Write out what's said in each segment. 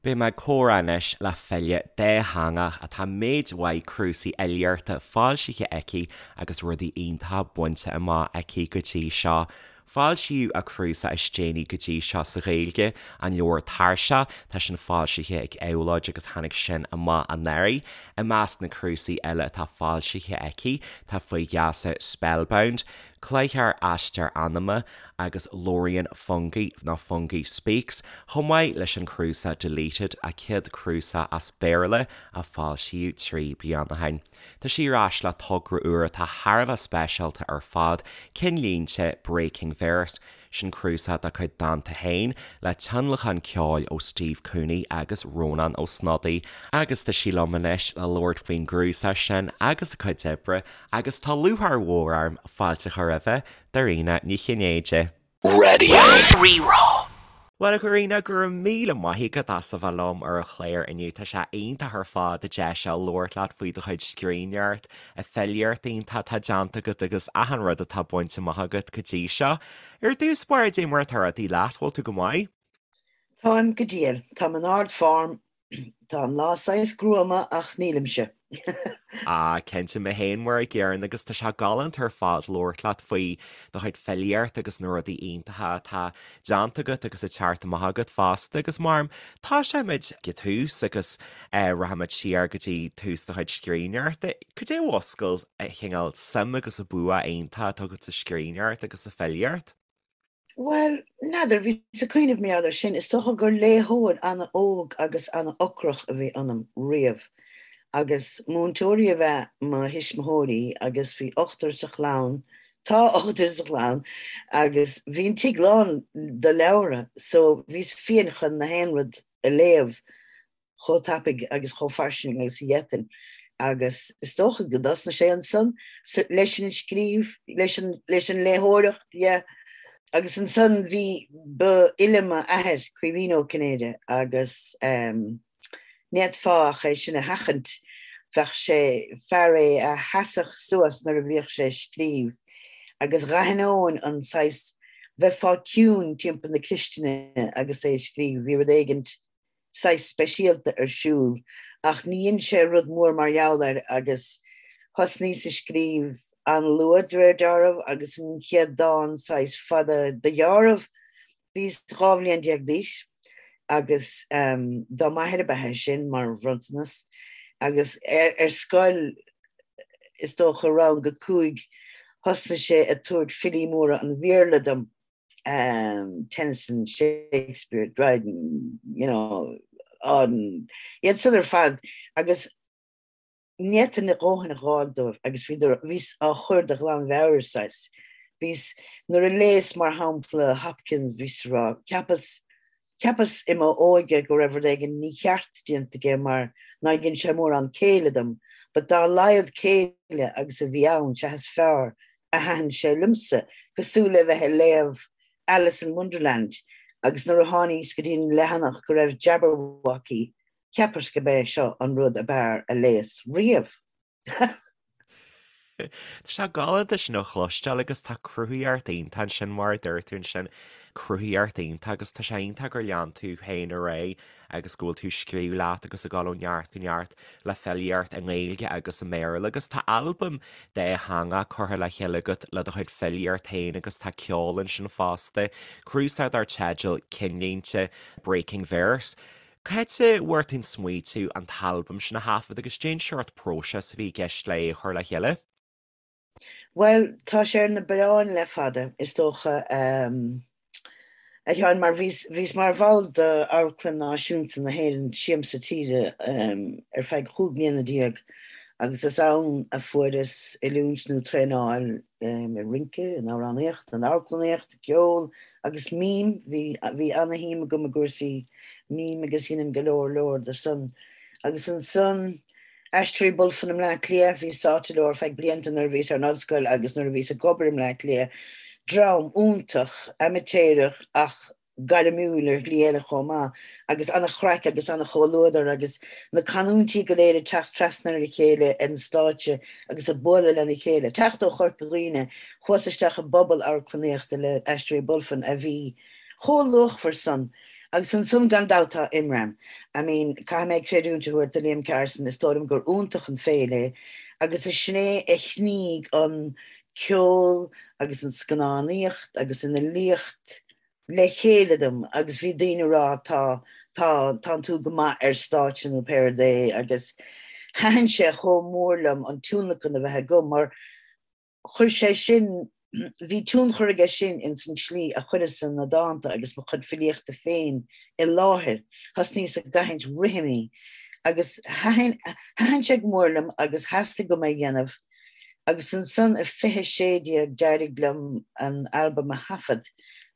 Beidh mé ag comhrá anois le file dátheangach atá méid mhaith cnuasaigh fhilíochta foilsithe aici agus rudaí iontacha bainte amach aici go dtí seo. Foilsíodh a cnuasach is déanaí go dtí seo sa Ghaeilge, an leabhar Tairseach, tá sin foilsithe ag Éabhlóid agus tháinig sin amach anuraidh. I measc na cnuasaigh eile atá foilsithe aici tá Faoi Gheasa Spellbound, Cloichear Aistear Anama agus Labhraíonn Fungi nó Fungi Speaks, chomh maith leis an cnuasach Deleted, a céad cnuasach as Béarla a foilsíodh 3 bliana ó shin. Tá sí ar ais le togra úr atá thar a bheith speisialta ar fad, Cinnlínte, Breaking Verse. Sin cnuasach dá cuid dánta féin, le tionlacan ceoil ó Steve Cooney agus Rónán Ó Snodaigh. Agus tá sí liom anois le labhairt faoin gcnuasach sin agus a cuid oibre, agus tá lúcháir mhór orm fáilte a chur roimhe, Dairena Ní Chinnéide. Raidió Rí-Rá. Bhuel, a Dhairena, go raibh míle maith agat as a bheith liom ar an chlár inniu. Tá sé iontach ar fad an deis seo labhairt leat faoi do chuid scríbhneoireacht, an filíocht iontach atá déanta agat agus achan rud atá bainte amach agat go dtí seo. Ar dtús báire, cad é mar atá rudaí leat, bhfuil tú go maith? Táim go diail. Táim in ard-form Tá an lá saghas gruama ach nílimse. Ah, cinnte, mé féin mar a gcéanna agus tá sé galánta ar fad labhairt leat faoi do chuid filíocht agus na rudaí iontacha atá déanta agat agus ag teacht amach agat fosta agus mar tosóimid ag an tús agus eh, rachaimid siar go dtí tús do chuid scríbhneoireachta. Cad é a mhúscail an cineál suim agus an bua iontach atá agat sa scríbhneoireacht agus sa filíocht? Bhuel, n'fheadar, bhíos ag cuimhneamh mar gheall air sin. Is dócha gur léitheoir an-óg agus an-ocrach a bhí ionam riamh. Agus múinteoirí ab ea mo thuismitheoirí agus bhí ochtar sa chlann, tá ochtar sa chlann, agus bhí an tigh lán de leabhra so bhíos fiain chun na haon rud a léamh. chomh tapaidh agus chomh fairsing agus a d'fhéadfainn agus is dócha go dtosnaigh sé ansan leis an scríobh, leis an, leis an léitheoireacht, yeah. Agus ansan bhí, ba fhile m'athair, Caoimhín Ó Cinnéide, agus ehm ní fhéadfá ach é sin a sheachaint, bheadh sé, fear é a sheasfadh suas nuair a bhíodh sé ag scríobh agus dh'aithneoinn an saghas, bheifeá ciúin timpeall na cistine agus é ag scríobh, bhí rud éigint saghas speisialta ar siúl ach ní dhein sé rud mór mar gheall air agus thosnaíos ag scríobh an-luath de réir dealraimh agus an chéad dán saghas fada de dheáramh bhíos 12 bhliain d'aois agus dá m'athair ab ea é sin mar bhronntanas agus ar scoil is dócha rang a cúig thosnaigh sé ag tabhairt filí móra an Bhéarla dom. Tennyson, Shakespeare, Dryden, you know, Auden, iad san ar fad agus ní fhéadfainn a dhóthain a dh'fháil dóibh agus bhíodar, bhíos á chur de ghlanmheabhair, saghas. Bhíos, nuair a léas mar shampla Hopkins, bhíos ag rá, cheapas, cheapas i m'óige go raibh rud éigin mícheart déanta aige mar nár dhein sé mórán céille dom, but dá laghad céille agus a bhí ann, sea is fearr a thaitin sé liomsa, cosúil le bheith ag léamh Alice in Wonderland agus nuair a tháiníos go dtí an leathanach go raibh Jabberwocky, cheapas go b'é seo an rud ab fhearr a léas riamh. Tá sé galánta sin a chloisteáil agus tá cruthaitheacht iontach ansin mar a dúirt tú ansin, cruthaitheacht iontach agus tá sé iontach gur lean tú féin ar aghaidh agus go bhfuil tú ag scríobh leat agus ag dul ó neart go neart le filíocht i nGaeilge agus i mBéarla agus tá albam dátheangach curtha le chéile agat le do chuid filíocht féin agus tá ceol ansin fosta, cnuasach dar teideal Cinnlínte, Breaking Verse. Cá háit a bhfuair tú an smaoitiú an t-albam sin a thaifead agus cén seort próiseas a bhí i gceist le é a chur le chéile? Bhuel, tá sé ar na bioráin le fada, is dócha, a Sheáin, mar bhíos, bhíos mar bhall d'Amharclann Náisiúnta na hÉireann, Siamsa Tíre, ar feadh chúig mbliana déag agus is ann a fuaireas oiliúint nó traenáil i rince, in amhránaíocht, in amharclannaíocht, i gceol agus mím, bhí, bhí ana-shuim agam i gcúrsaí mím agus dheineann go leor leor de san. Agus ansan, Aisteoirí Bulfin i mBleá Cliath, bhíos sáite leo ar feadh blianta nuair a bhíos ar an ollscoil agus nuair a bhíos ag obair i mBleá Cliath. Dream iontach, amaitéarach ach gairmiúil ar shlí eile chomh maith agus an-chraic agus an-chomhluadar agus na canúintí go léir ag teacht trasna ar a chéile ar an stáitse agus ag bualadh lena chéile. Teacht ó Chorca Dhuibhne, chuas isteach i bpobal amharclannaíochta le Aisteoirí Bulfin a bhí chomh luachmhar san. Agus ansan gan dabht tá Imram. I mean, caithfidh mé creidiúint a thabhairt do Liam Carson, is dóigh liom gur iontach an féile é agus is sin é a shnígh an ceol agus an scannánaíocht agus an fhilíocht le chéile dom agus bhí daoine ag rá tá, tá, tánn tú go maith ar stáitse nó pé rud é agus thaitin sé chomh mór liom an tionlacan a bheith agam mar chuir sé sin, bhí tionchar aige sin ins an tslí a chuireas-sa na dánta agus mo chuid filíochta féin i láthair. Thosnaíos ag aithint rithimí agus thaitin, thaitin sé go mór liom agus theastaigh uaim é a dhéanamh agus ansan i 2016 d'éirigh liom an albam a thaifead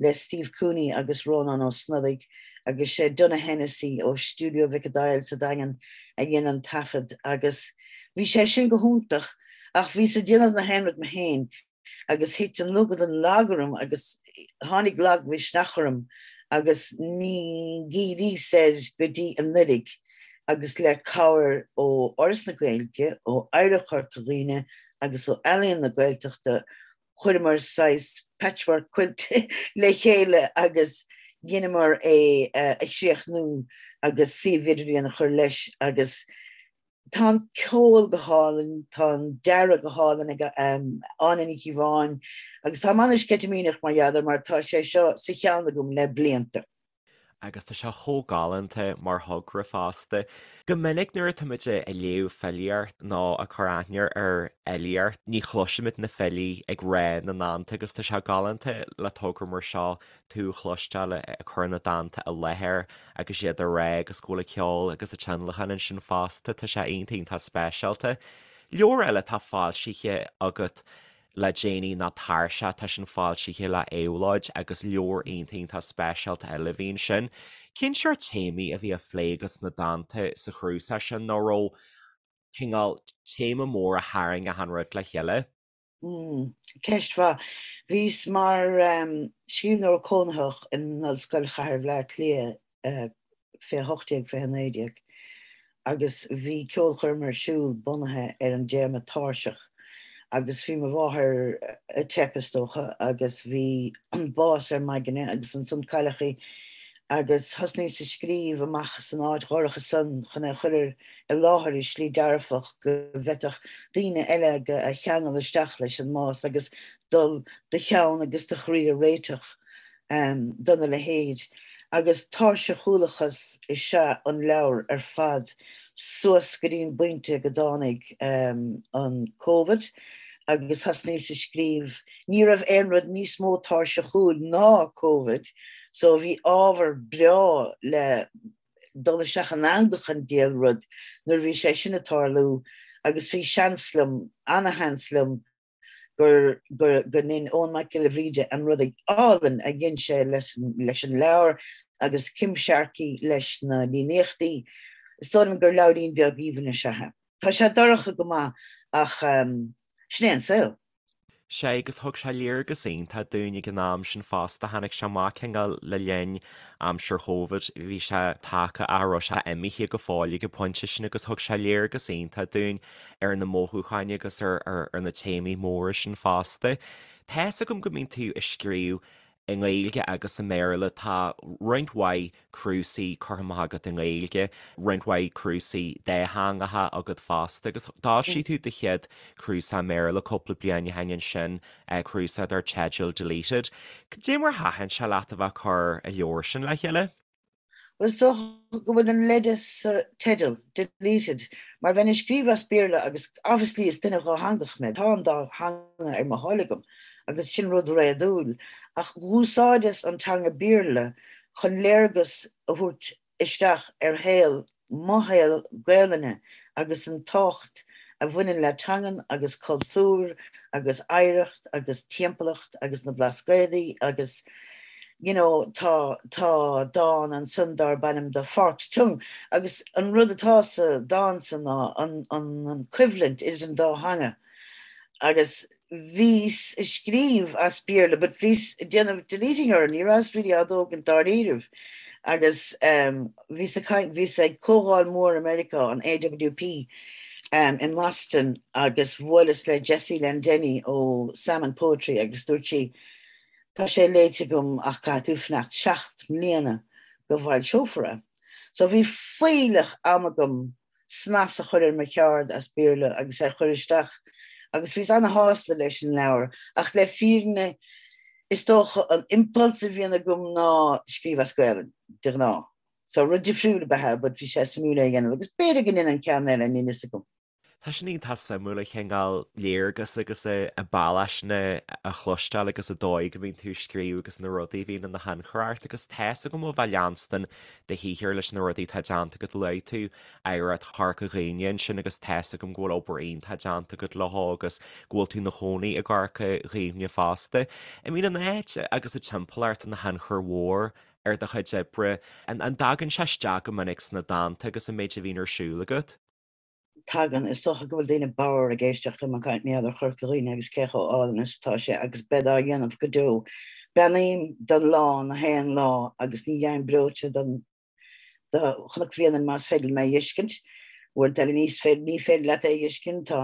le Steve Cooney agus Rónán Ó Snodaigh agus sé Donagh Hennessy ó Stiúideo Mhic an Daill sa Daingean a dhein an taifead agus bhí sé sin go hiontach. Ach bhíos ag déanamh na haon rud mé féin agus thit an lúgad an lag orm agus tháinig lagmhisneach orm agus ní dhíríos air go dtí anuiridh agus le cabhair ó Fhoras na Gaeilge, ó Oidhreacht Chorca Dhuibhne agus ó Ealaíon na Gaeltachta chuireamar saghas patchwork quilt le chéile agus dheineamar é a chríochnú agus suíomh idirlíon a chur leis agus Tá an ceol go hálainn, tá an dearadh go hálainn ag Áine Ní Chíobháin agus táim an-sceitimíneach mar gheall air mar tá sé seo sa cheann agam le blianta. Agus tá sé chomh galánta mar thogra fosta. Go minic nuair atáimid ag léamh filíocht nó ag cur aithne ar fhilíocht, ní chloisimid na filí ag rá na ndánta agus tá sé galánta le togra mar seo tú a chloisteáil ag cur na dánta i láthair agus iad á rá agus go bhfuil an ceol agus an tionlacan ansin fosta, tá sé iontach iontach speisialta. Leabhar eile atá foilsithe agat le déanaí ná Tairseach, tá sin foilsithe le Éabhlóid agus leabhar iontach iontach speisialta eile a bhí ansin. Cén seort téamaí a bhí á phlé agat sna dánta sa chnuasach sin nó raibh cineál téama mór a tharraing achan rud le chéile? Ceist mhaith. Bhíos mar scríbhneoir cónaitheach in Ollscoil Chathair Bhaile Átha Cliath 2018, 2019 agus bhí ceolchoirm ar siúl bunaithe ar an dtéama tairseach agus bhí mo mháthair ag teip is dócha agus bhí an bás ar m'aigne agus ansan cailleadh í agus thosnaíos ag scríobh amach san áit dhorcha san chun é a chur ar i láthair i slí dearfach go bhféadfadh daoine eile a cheangal isteach leis an mbás agus dul do cheann agus do chroí a réiteach dona leithéid. Agus tairseachúlachas is ea an leabhar ar fad suas go dtí an bpointe go dtáinig an Covid agus thosnaíos ag scríobh. Ní raibh aon rud níos mó tairseachúil ná Covid so bhí ábhar breá le dul isteach in eangach an diabhal rud nuair a bhí sé sin ag tarlú agus bhí seans liom, ana-sheans liom gur, go, go ndein Eoin Mac Giolla Bhríde an rud álainn a dhein sé leis, leis an leabhar agus Kim Sharkey leis na líníochtaí. Is dóigh liom gur leabhairín beag aoibhinn is ea é. Tá sé dorcha go maith ach sin é an saol. Sea, agus thug sé léargas iontach dúinn ag an am sin fosta. Tháinig sé amach cineál le linn aimsir Chóvid, bhí sé tagtha ach raibh sé imithe go fóill ag an bpointe sin agus thug sé léargas iontach dúinn ar na mothúcháin agus ar ar na téamaí móra sin fosta. Tá's agam go mbíonn tú ag scríobh i nGaeilge agus i mBéarla. Tá roinnt mhaith cnuasaigh curtha amach agat i nGaeilge, roinnt mhaith cnuasaigh dátheangacha agat fosta agus d'fhoilsigh tú do chéad chnuasach i mBéarla cúpla bliain ó shin ansin, cnuasach dar teideal Deleted. Cad é mar thaitin sé leat a bheith ag cur an leabhar sin le chéile? Bhuel, is dócha go bhfuil an leide sa teideal, Deleted, mar bheinn ag scríobh as Béarla agus obviously is duine dhátheangach mé, tá an dá theanga ar mo thoil agam agus sin rud réadúil, ach dh'úsáideas an teanga Béarla chun léargas a thabhairt isteach ar shaol mo shaol Gaelainne agus an tábhacht a bhaineann le teangain agus cultúr agus oidhreacht agus timpeallacht agus na Blascaodaí agus you know tá tá dán ansan darb ainm The Forked Tongue agus an rud atá sa dán san ná an an an coimhlint idir an dá theanga agus bhíos ag scríobh as Béarla but bhíos ag déanamh deleting orthu, ní rabhas really á dtógaint dáiríribh agus bhíos ag caint, bhíos ag comhdháil mhór i Meiriceá, an AWP i mBoston agus bhuaileas le Jessie Lendenny ó Salmon Poetry agus dúirt sí, tá sé léite agam ach caithfidh tú fanacht 7 mbliana. go bhfoilseofar é. So bhí fuílleach ama agam snas a chur ar mo cheard as Béarla agus é a chur isteach agus bhíos ana-shásta leis an leabhar ach le fírinne is dócha an impulse a bhíonn agam ná scríobh as Gaelainn, de ghnáth. So rud difriúil ab ea é but bhí sé suimiúil é a dhéanamh agus b'fhéidir go ndéanfainn ceann eile, níl fhios agam. Tá sin iontach suimiúil an cineál léargas agus an bealach sin a chloisteáil agus an dóigh go mbíonn tú ag scríobh agus na rudaí a bhíonn ina thionchar ort agus tá's agam ó bheith ag leanstan do shaothar leis na rudaí atá déanta agat luaigh tú oidhreacht Chorca Dhuibhne ansin agus tá's agam go bhfuil obair iontach déanta agat leo agus go bhfuil tú ina chónaí i gCorca Dhuibhne fosta. I mean an áit agus an timpeallacht ina thionchar mhór ar do chuid oibre, an dtagann sé isteach go minic sna dánta agus an méid a bhíonn ar siúl agat? Tagann. Is dócha go bhfuil daoine bodhar ag éisteacht liom ag caint mar gheall ar Chorca Dhuibhne agus cé chomh álainn is atá sé agus bead á dhéanamh go deo. Beannaím don lá na haon lá agus ní dheim breoite don do Chnoc Bhréanainn más féidir liom é a dh'fheiscint. Uaireanta eile níos féidir ní féidir leat é a dh'fheiscint. Tá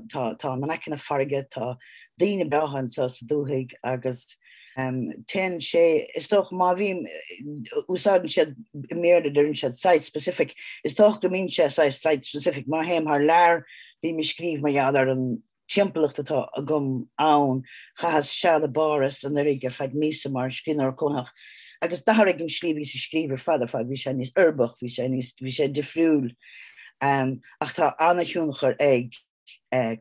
Tá, tá in aice na farraige, tá daoine breátha anseo sa dúthaigh agus téann sé, is dócha má bhím, úsáideann siad i mBéarla deireann siad site specific, is dócha go mbíonn sé saghas site specific, má théim thar lear bím ag scríobh mar gheall ar an timpeallacht atá agam ann, chaitheas seal i bPáras anuraidh ar feadh míosa mar scríbhneoir cónaitheach agus d'athraigh an slí a bhíos ag scríobh ar fad ar fad, bhí sé níos uirbeach, bhí sé níos, bhí sé difriúil. Ach tá an-thionchar ag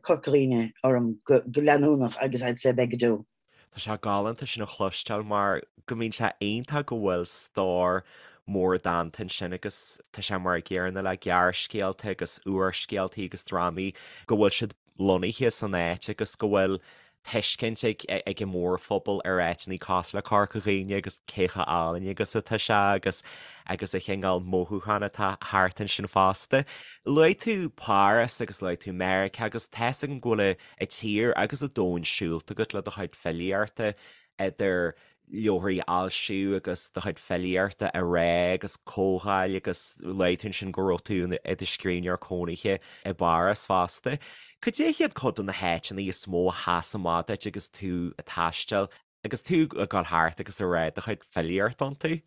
Corca Dhuibhne orm go leanúnach agus I'd say beidh go deo. Tá sé galánta sin a chloisteáil mar go mbíonn sé iontach go bhfuil stór mór dánta ansin agus tá sé mar an gcéanna le gearrscéalta agus úrscéaltaí agus drámaí go bhfuil siad lonnaithe san áit agus go bhfuil tuiscint ag ag an mórphobal ar áiteanna cosúil le Corca Dhuibhne agus cé chomh álainn agus atá sé agus agus an cineál mothúchán atá thart ansin fosta. Luaigh tú Páras agus luaigh tú Meiriceá agus tá's agam go bhfuil an tír agus an domhan siúlta agat le do chuid filíochta idir leabharthaí a fhoilsiú agus do chuid filíochta a rá agus comhdháil agus luaigh tú ansin go raibh tú i do scríbhneoir cónaithe i bPáras fosta. Cad é hiad cuid de na háiteanna is mó a sheas amach duit agus tú ag taisteal agus tú ag dul thart agus ag rá do chuid filíochta iontu?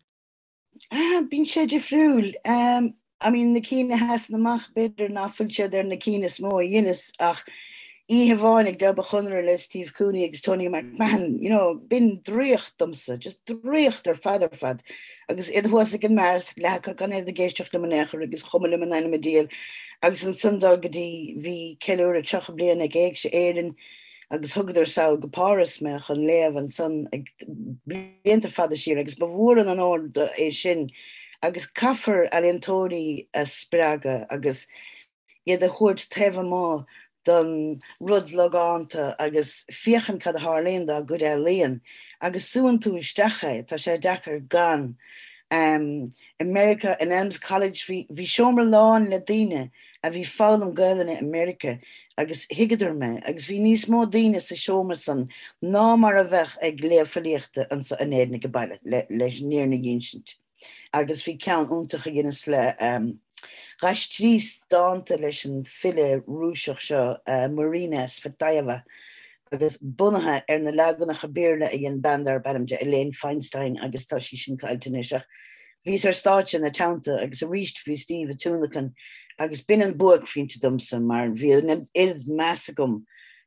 Bíonn sé difriúil. I mean, na cinn a sheasann amach, b'fhéidir ná fuil siad ar na cinn is mó a dheineas ach oíche amháin ag Leaba Chonaire le Steve Cooney agus Tony McMahon, you know, b'in draíocht domsa, just draíocht ar fad ar fad. Agus iad thuas ag an mbeár, leath acu gan iad ag éisteacht liom in aon chor agus chuma liom in ainm an diabhail. Agus ansan dul go dtí, bhí ceiliúradh 30 bliain ag Éigse Éireann, agus thugadar sall go Páras mé chun léamh ansan ag blianta fada siar agus ba mhór an onóir é sin agus caithfear ealaíontóirí a spreagadh agus iad a thabhairt taobh amuigh don rud logánta agus féachaint cad a tharlaíonn dá gcuid ealaíon agus súann tú isteach é, tá sé deacair gan. I Meiriceá in Elms College bhí seomra lán le daoine a bhí foghlaim Gaelainne i Meiriceá agus thuigeadar mé agus bhí níos mó daoine sa seomra san ná mar a bheadh ag léamh filíochta anso in Éirinn age baile, leis an fhírinne a dh'ínsint. Agus bhí ceann iontach a dheineas le, d'aistríos dánta leis an file Rúiseach seo, Marina Tsvetaeva, agus bunaithe ar na leaganacha Béarla a dhein bean darb ainm di Elaine Feinstein agus tá sí sin caillte anois ach bhíos ar stáitse ina teannta agus arís bhí Steve ag tionlacan agus b'in an buaicphointe domsa mar bhí an oiread meas agam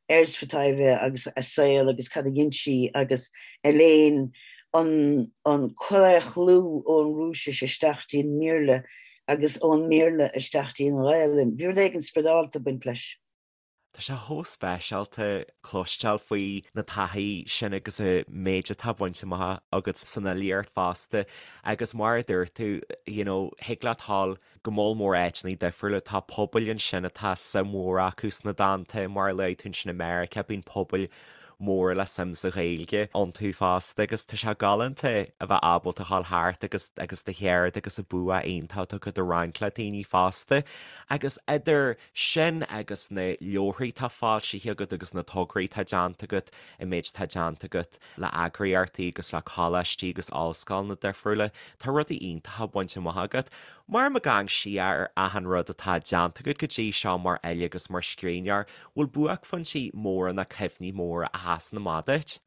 ar Tsvetaeva agus a saol agus cad a dhein sí agus Elaine an an claochlú ón Rúisis isteach dtí an mBéarla agus ón mBéarla isteach dtí an Ghaelainn. Bhí rud éigin spioradálta ag baint leis. Tá sé chomh speisialta cloisteáil faoi na taithí sin agus an méid atá bainte amach agat san fhilíocht fosta agus mar a dúirt tú, you know, thig leat dhul go moll mór áiteanna difriúla, tá pobail ansin atá suim mhór acu sna dánta, mar a luaigh tú ansin i Meiriceá, bíonn pobail móra le suim sa Ghaeilge iontu fosta agus tá sé galánta a bheith ábalta dhul thart agus agus do cheird agus an bua iontach atá agat a roinnt le daoine fosta agus idir sin agus na leabharthaí atá foilsithe agat agus na tograí atá déanta agat, an méid atá déanta agat le eagraíochtaí agus le coláistí agus ollscoileanna difriúla, tá rudaí iontacha bainte amach agat. Mar ag amharc siar ar achan rud atá déanta agat go dtí seo mar fhile agus mar scríbhneoir, bhfuil buaicphointí móra nó cuimhní móra a sheasann amach duit?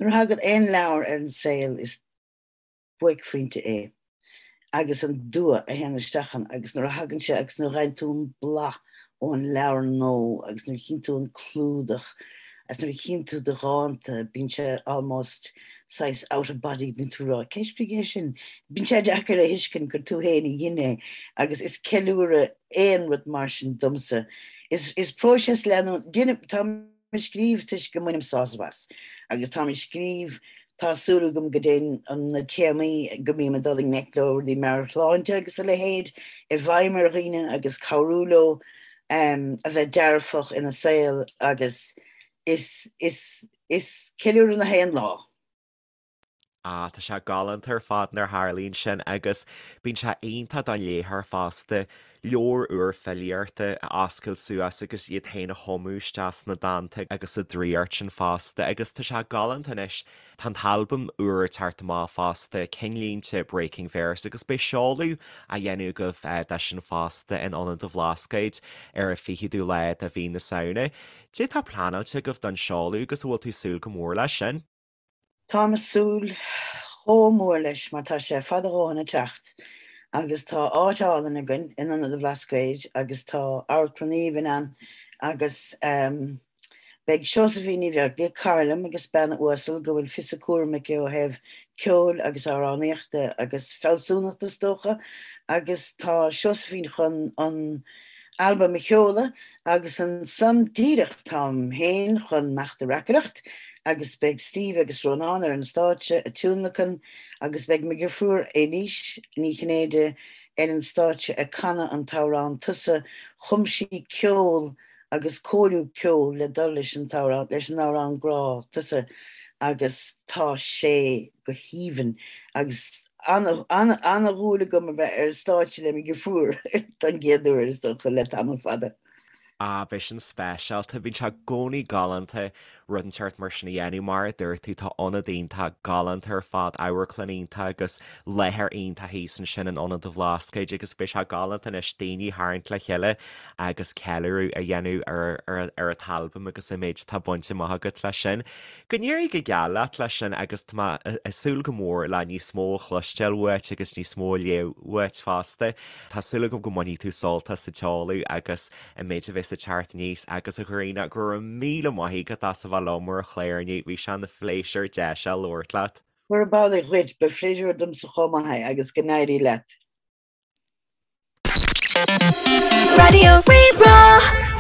Nuair a thagann aon leabhar ar an saol is. Buaicphointe é agus an dua a théann isteach ann agus nuair a thagann sé agus nuair a fhaigheann tú an blas ón leabhar nua agus nuair a chíonn tú an clúdach agus nuair a chíonn tú do dhánta, bíonn sé almost saghas out of body, bíonn tú ag rá, cé a scrígh é sin? Bíonn sé deacair a thuiscint gur tú féin a dhein é agus is ceiliúradh aon rud mar sin domsa. Is, is próiseas leanúnach, tá ag scríobh toisc go mbainim sásamh as agus táim ag scríobh, tá súil agam go dtéann na téamaí go mbím ag dul i ngleic leo, rudaí meabhairshláinte agus a leithéid, i bhfeidhm ar dhaoine agus cabhrú leo a bheith dearfach ina saol agus is, is, is ceiliúradh na haon lá. Ah, tá sé galánta ar fad nuair a tharlaíonn sin agus bíonn sé iontach don léitheoir fosta leabhar úr filíochta a oscailt suas agus iad féin a thumadh isteach sna dánta agus sa draíocht sin fosta agus tá sé galánta anois, tá an t-albam úr ag teacht amach fosta, Cinnlínte Breaking Verse agus beidh seoladh á dhéanamh agaibh de sin fosta in Ionad an Bhlascaoid ar an 20ú lá de mhí na Samhna. Cad é atá pleanáilte agaibh don seoladh agus an bhfuil tú ag súil go mór leis sin? Táim ag súil chomh mór leis mar tá sé fada a dhóthain ag teacht agus tá áit álainn againn in Ionad an Bhlascaoid agus tá amharclann aoibhinn ann agus beidh Seosaimhín Ní Bheaglaoich, cara liom agus bean uasal go bhfuil fios a cúraim aici ó thaobh ceoil agus amhránaíochta agus fealsúnachta is dócha agus tá Seosaimhín chun an albam a sheoladh agus ansan díreach táim féin chun imeacht ag reacaireacht agus beidh Steve agus Rónán ar an stáitse ag tionlacan agus beidh mo dheirfiúr Éilís Ní Chinnéide ar an stáitse ag canadh an t-amhrán Tusa. Chum sí ceol agus cóiriú ceoil le dul leis an t-amhrán, leis an amhrán grá Tusa agus tá sé go haoibhinn agus ana-dhúil agam a bheith ar stáitse le mo dheirfiúr don gcéad uair is dócha le tamall fada. Ah, beidh sin speisialta. Bíonn sé i gcónaí galánta rud inteacht mar sin a dhéanamh. Mar a dúirt tú, tá ionad iontach galánta ar fad, amharclann iontach agus láthair iontach thíos ansin in Ionad an Bhlascaoid agus beidh sé galánta anois daoine a tharraingt le chéile agus ceiliúradh a dhéanamh ar ar an t-albam agus an méid atá bainte amach agat leis sin. Go n-éirí go geal leat leis sin agus tá mé ag súil go mór le níos mó a chloisteáil uait agus níos mó a léamh uait fosta. Tá súil agam go mbainfidh tú sult as an tseoladh agus an méid a bheas ag teacht aníos agus a Ghrianna, go raibh míle maith agat as a bheith liom ar an chlár inniu, bhí sé ina phléisiúr deis a labhairt leat. Gurab amhlaidh dhuit, ba phléisiúr domsa chomh maith é agus go n-éirí leat. Raidió Rí-Rá.